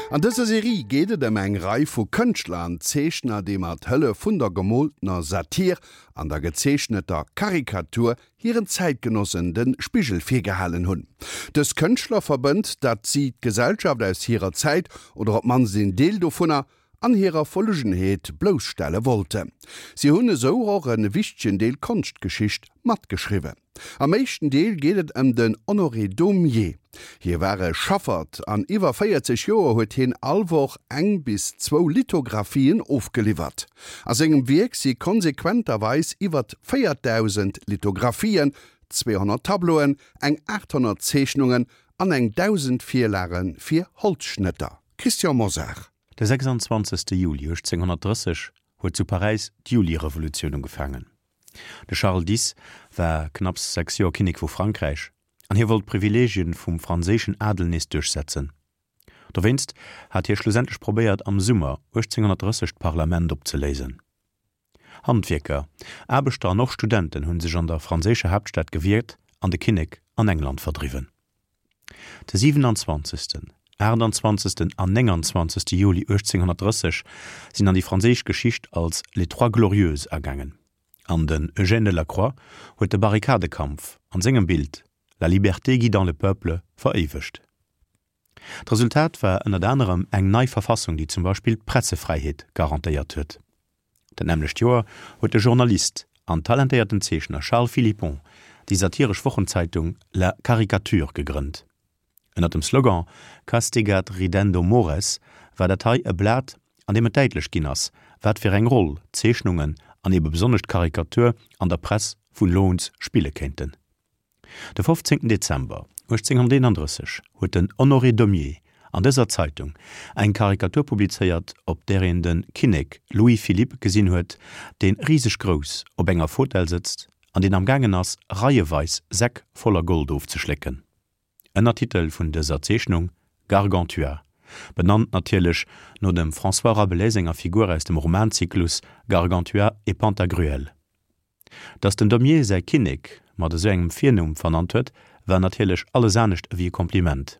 An dëser Serie geet et ëm eng Rei vu Kënschtler an Zeechner, déi mat Hëllef vun der gemooltener Satir an der gezeechneter Karikatur hiren Zäitgenossen de Spigel virgehalen hunn. Dës Kënschtler verbënnt, datt si d'Gesellschaft aus hirer Zäit, oder op d'mannst een Deel dovunner, an hirer Verlugenheet blousstelle wollten. Si hunn esou och e wichtegen Deel Konschtgeschicht matgeschriwwen. Am éischten Deel geet et ëm den Honoré Daumier. Hie war e Schaffert an iwwer 40 Joer huet hien all Woch eng bis zwou Lithographien ofgeliwwert. A sengem Wierk si konsequenterweis iwwert 4.000 Lithographien, 200 Tableauen, eng 800 Zeechnungen an eng 1.000 Virlage fir Holzschnëtter. Christian Mosar. De 26. Juli 1830 huet zu Paräis d'Julirevolutioun ugefaangen. De Charles X. war knapps 6 Joer Kinnek vu Frankräich an hie wollt d'Privileegien vum franséischen Adel nees duerchsetzen. Dowéinst hat hie schlussendlech probéiert am Summer 1830 d'Parlament opzeléisen. Handwierker, Aarbechter an och Studenten hunn sech an der franséischer Haaptstad gewiert an de Kinnek an England verdriwwen. De 27., 28. an 29. Juli 1830 sinn an déi franséisch Geschicht als Les Trois Glorieuses agaangen an den Eugène Delacroix huet de Barrikadekampf an sengem Bild La liberté guidant le peuple veréiwegt. D'Resultat war ënnert anerem eng nei Verfassung, déi zum Beispill d'Pressefräiheet garantéiert huet. Dat nämmlecht Joer huet de Journalist an talentéierten Zeechner Charles Philippon déi satiresch Wochenzeitung La Caricature gegrënnt. Ënnert dem Slogan Castigat ridendo mores war dat hei e Blat, an deem et däitlech ginn ass, wat fir eng Roll d'Zeechnungen an ebe besonnesch d'Karikatur an der Press vun elo uns spille kéinten. De 15 Dezember 1831 huet den Honoré Daumier an dëser Zeitung eng Karikatur publizéiert, op där een de Kinnek Louis-Philippe gesinn huet, dee riseg grouss op enger Fotell sëtzt an deen amgaangen ass, reieweis Säck voller Gold ofzeschlécken. Ënnertitel vun dëser Zeechnung, Gargantua, benannt natierlech no dem François Rabelais senger Figur aus dem Romanzyklus Gargantua et Pantagruel. Datt den Daumier säi Kinnek mat esou engem Virnumm vernannt huet, war natierlech alles anescht ewéi e Kompliment.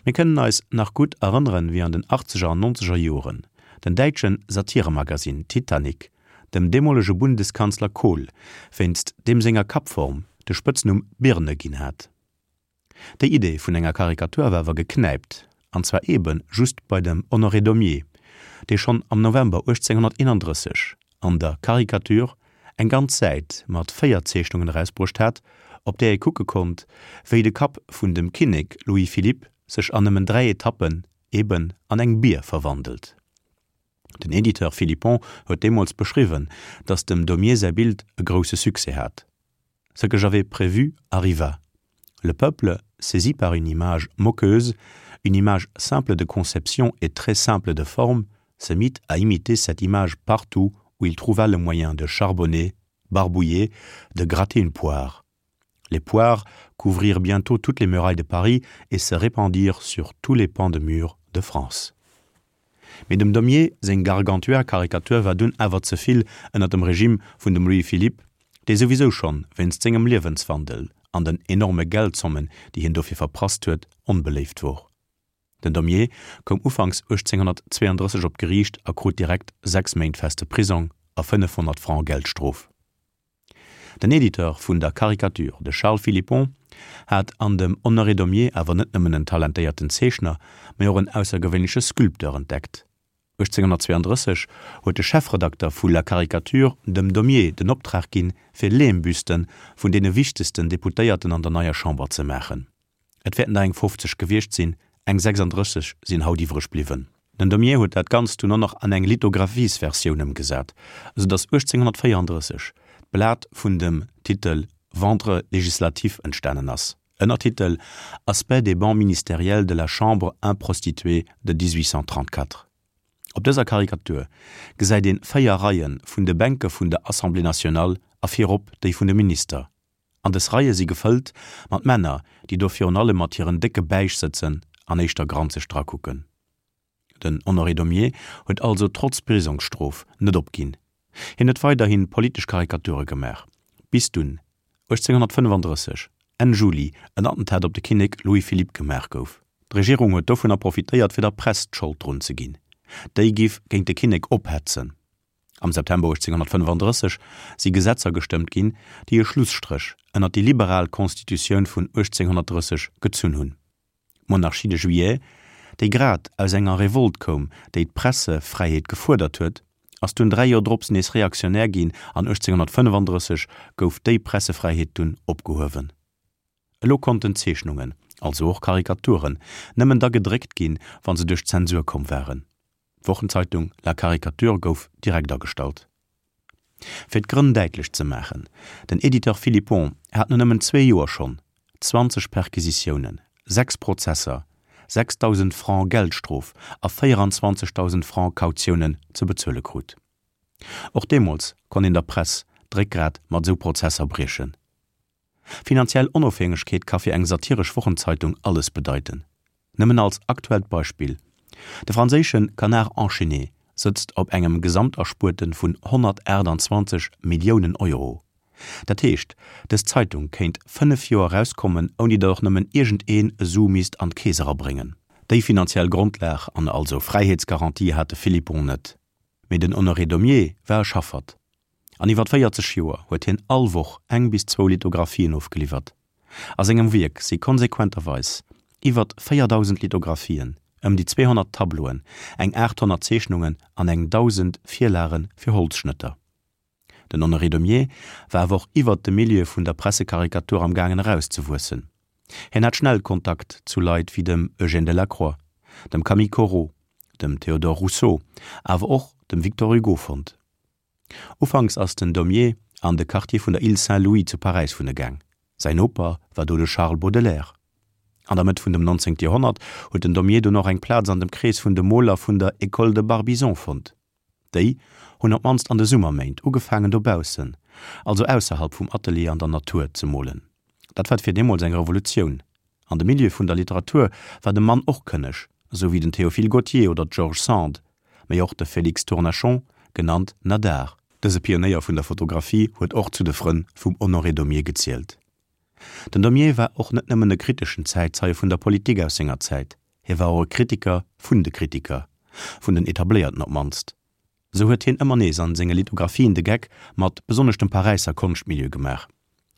Mir kënnen eis nach gutt erënneren, wéi an den achtzeger an nonzeger Joren den däitsche Satiremagazin Titanic dem deemolege Bundeskanzler Kohl wéinst deem senger Kappform de Spëtznumm Birne ginn hat. Déi Idee vun enger Karikatur war awer geknäipt, an zwar eebe just bei dem Honoré Daumier, dee schonn am November 1831 an der Caricature eng ganz Säit mat 4 Zeechnungen erausbruecht hat, op där ee kucke konnt, wéi de Kapp vun dem Kinnek Louis-Philippe sech an nëmmen 3 Etappen eeben an eng Bier verwandelt. Den Editeur Philippon huet deemools beschriwwen, datt dem Daumier säi Bild e grousse Succès hat. Ce que j'avais prévu arriva. Le peuple, saisi par une image moqueuse, une image simple de conception et très simple de forme, se mit à imiter cette image partout où il trouva le moyen de charbonner, barbouiller, de gratter une poire. Les poires couvrirent bientôt toutes les murailles de Paris et se répandirent sur tous les pans de murs de France. Mee dem Daumier seng Gargantua-Karikatur war dunn awer ze vill ënner dem Regime vun dem Louis-Philippe, dee souwisou schonn wéinst sengem Liewenswandel an den enorme Geldzommen, déi hien dofir verprasst huet, onbeléift wor. Den Daumier koum ufanks 1832 op d'Geriicht a krut direkt 6 Méint feste Prisong a 500 Franc Geldstrof. Den Editeur vun der Caricature, de Charles Philippon, hat an dem Honoré Daumier awer net nëmmen en talentéierten Zeechner, mä och en aussergewéinleche Sculpteur entdeckt. 1832 huet de Chefredakter vu La Caricature dem Daumier den Optrag ginn, fir Lehmbüste vun deene wichtegsten Deputéierten an der neier Chamber ze maachen. Et wäerten der eng 50 gewiescht sinn, eng 36 sinn haut iwwreg bliwwen. Den Daumier huet dat Ganzt dunn och nach an eng Lithografiesversioun ëmgesat, esou datt 1834 d'Blat vun dem Titel Ventre législatif entstanen ass, Ënnertitel, Aspect des bancs ministériels de la Chambre improstituée de 1834. Op dëser Karikatur gesäit een 4 Reie vun de Bänke vun der Assemblée nationale a virop déi vun de Minister. An des Reie si gefëllt mat Männer, déi do virun allem mat hiren décke Bäich sëtzen an éischter granzeg drakucken. Den Honoré Daumier huet also trotz Prisongsstrof net opginn. Hien huet weiderhi politesch Karikature gemaach, bis dunn 1835, Enn Juli, en Attentat op de Kinnek Louis-Philippe gemaach gouf. D'Regierung huet dovunner profitéiert fir der Press d'Schold drun ze ginn, déi giff géint de Kinnek ophetzen. Am September 1835 si Gesetzer gestëmmt ginn, déi e Schlusstréch ënnert déi liberal Constitutioun vun 1830 gezunn hunn. D'Monarchie de Juillet, déi grad aus enger Revolt koum, déi d'Pressefräiheet gefuerdert huet, ass dunn 3 Joer drops nees reaktionär ginn an 1835 gouf déi Pressefräiheet dunn opgehuewen. Elo konnten Zeechnungen, also och Karikaturen, nëmmen da gedréckt ginn, wa se duerch d'Zensur komm waren. D'Wochenzeitung La Caricature gouf direkt agestallt. Fir d'Grënn däitlech ze maachen, Den Editeur Philippon hat no nëmmen zwee Joer schonn 20 Perquisitiounen, 6 Prozesser, 6.000 Francs Geldstrof a 24.000 Francs Kautiounen ze bezuele krut. Och deemools konnt een der Press d'Réckgrat mat esou Prozesser briechen. Finanziell Onofhängegkeet ka fir eng satiresch Wochenzeitung alles bedeiten. Nëmmen als aktuellt Beispill, De franséische Canard enchaîné sëtzt op engem Gesamterspuerte vun 128 Milliounen Euro. Dat heescht, dës Zeitung kéint 5 Joer erauskommen, ouni datt och nëmmen iergendeen e Su misst an d'Keess erabréngen. Déi finanziell Grondlag an also Fräiheetsgarantie hat de Philippon net. Mee den Honoré Daumier war e Schaffert. An iwwer 40 Joer huet hien all Woch eng bis zwou Lithografien ofgeliwwert. A sengem Wierk si konsequenterweis iwwer 4.000 Lithografien, ëm déi 200 Tableauen, eng 800 Zeechnungen an eng 1.000 Virlage fir Holzschnëtter. Den Honoré Daumier war awer och iwwert de Milieu vun der Pressekarikatur am gaangen erauszewuessen. Hien hat schnell Kontakt zu Leit wéi dem Eugène Delacroix, dem Camille Corot, dem Théodore Rousseau, awer och dem Victor Hugo fonnt. Ufanks ass den Daumier an de Quartier vun der Île Saint-Louis zu Paräis wunne gaang. Säin Noper war do de Charles Baudelaire. An der Mëtt vun dem 19. Joerhonnert huet den Daumier dunn och eng Plaz an dem Krees vun de Moler vun der École de Barbizon fonnt. Déi hunn op d'mannst an de Summerméint ugefaangen dobaussen, also ausserhalb vum Atelier an der Natur, ze molen. Dat war fir deemools eng Revolutioun. An de Milieu vun der Literatur war de Mann och kënneg, esou wéi den Théophile Gautier oder d'George Sand, mee och de Félix Tournachon, genannt Nadar. Dëse Pionéier vun der Fotografie huet och zu de Frënn vum Honoré Daumier gezielt. Den Daumier war och net nëmmen e kriteschen Zäitzeie vun der Politik aus senger Zäit, hie war och e Kritiker vun de Kritiker, vun den Etabléierten op d'mannst. Esou huet hien ëmmer nees an senge Lithografien de Geck mat besonnesch dem Paräisser Konschtmilieu gemaach.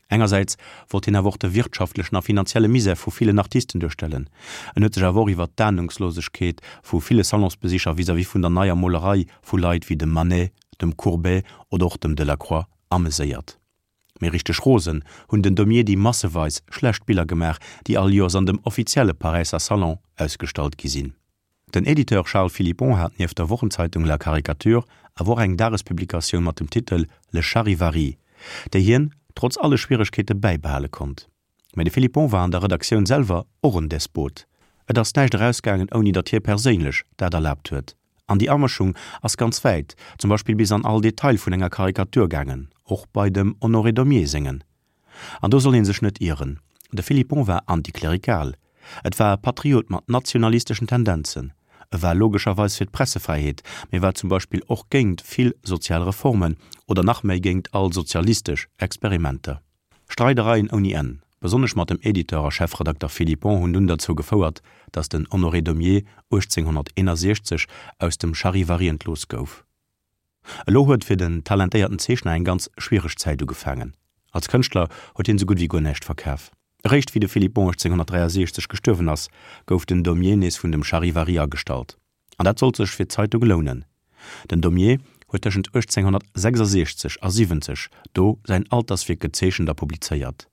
Engersäits wollt hien awer och de wirtschaftlechen a finanzielle Misär vu villen Artisten duerstellen. En huet sech awer och iwwer d'Ahnungslosegkeet vu ville Salonsbesicher vis-à-vis vun der neier Molerei vu Leit wéi dem Manet, dem Courbet oder och dem Delacroix ameséiert. Mee richteg rosen hunn den Daumier déi masseweis schlecht Biller gemaach, déi all Joers an dem offizielle Paräisser Salon ausgestallt gi sinn. Den Editeur Charles Philippon hat nieft der Wochenzeitung La Caricature awer och eng Dagespublikatioun mat dem Titel Le Charivari, déi hien trotz alle Schwieregkeete bäibehale konnt. Mä de Philippon war an der Redaktioun selwer och en Despot. Et ass näischt erausgaangen, ouni datt hie perséinlech dat erlaabt huet. An déi Amëschung ass ganz wäit, zum Beispill bis an all Detail vun enger Karikatur gaangen, och bei dem Honoré Daumier sengen. An do soll ee sech net ieren, de Philippon war antiklerikal, et war e Patriot mat nationalisteschen Tendenzen, e war logescherweis fir d'Pressefräiheet, mee war zum Beispill och géingt vill sozial Reformen oder nach méi géingt all sozialistesch Experimenter. Streidereien ouni Enn, besonnesch mat dem Editeur a Chefredakter Philippon hunn dunn derzou gefouert, datt den Honoré Daumier 1861 aus dem Charivari entlooss gouf. Elo huet fir den talentéierten Zeechner eng ganz schwiereg Zäit ugefaangen. Als Kënschtler huet hien sou gutt wéi guer näischt verkaf. Eréischt wéi de Philippon 1863 gestuerwen ass, gouf den Daumier nees vun dem Charivari agestallt. An dat sollt sech fir d'Zeitung lounen. Den Daumier huet tëschent 1866 a 70 do säin Alterswierk gezeechent a publizéiert.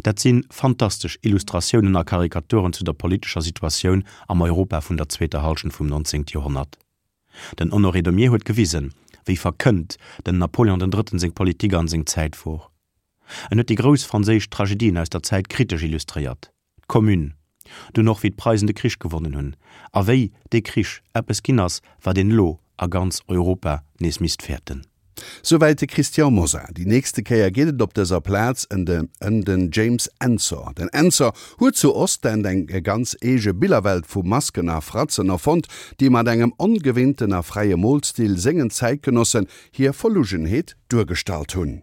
Dat si fantastesch Illustratiounen a Karikaturen zu der politescher Situatioun am Europa vun der zweeter Hallschent vum 19. Joerhonnert. Den Honoré Daumier huet gewisen, wéi verkënnt den Napoleon den Drëtten seng Politik an seng Zäit wor. En huet déi grouss franséisch Tragedien aus der Zäit kritesch illustréiert, d'Commune, dunn och wéi d'Preisen de Krich gewonnen hunn a wéi dee Krich eppes ginn ass, wat een elo a ganz Europa nees misst fäerten. Souwäit de Christian Mosar. Déi nächste Kéier geet et op dëser Plaz ëm den James Ensor. Den Ensor huet zu Ostend eng ganz eege Billerwelt vu Masken a Fratzen erfonnt, déi mat engem ongewinnten a fräie Molstil sengen Zäitgenossen hir Verlugenheet duergestallt hunn.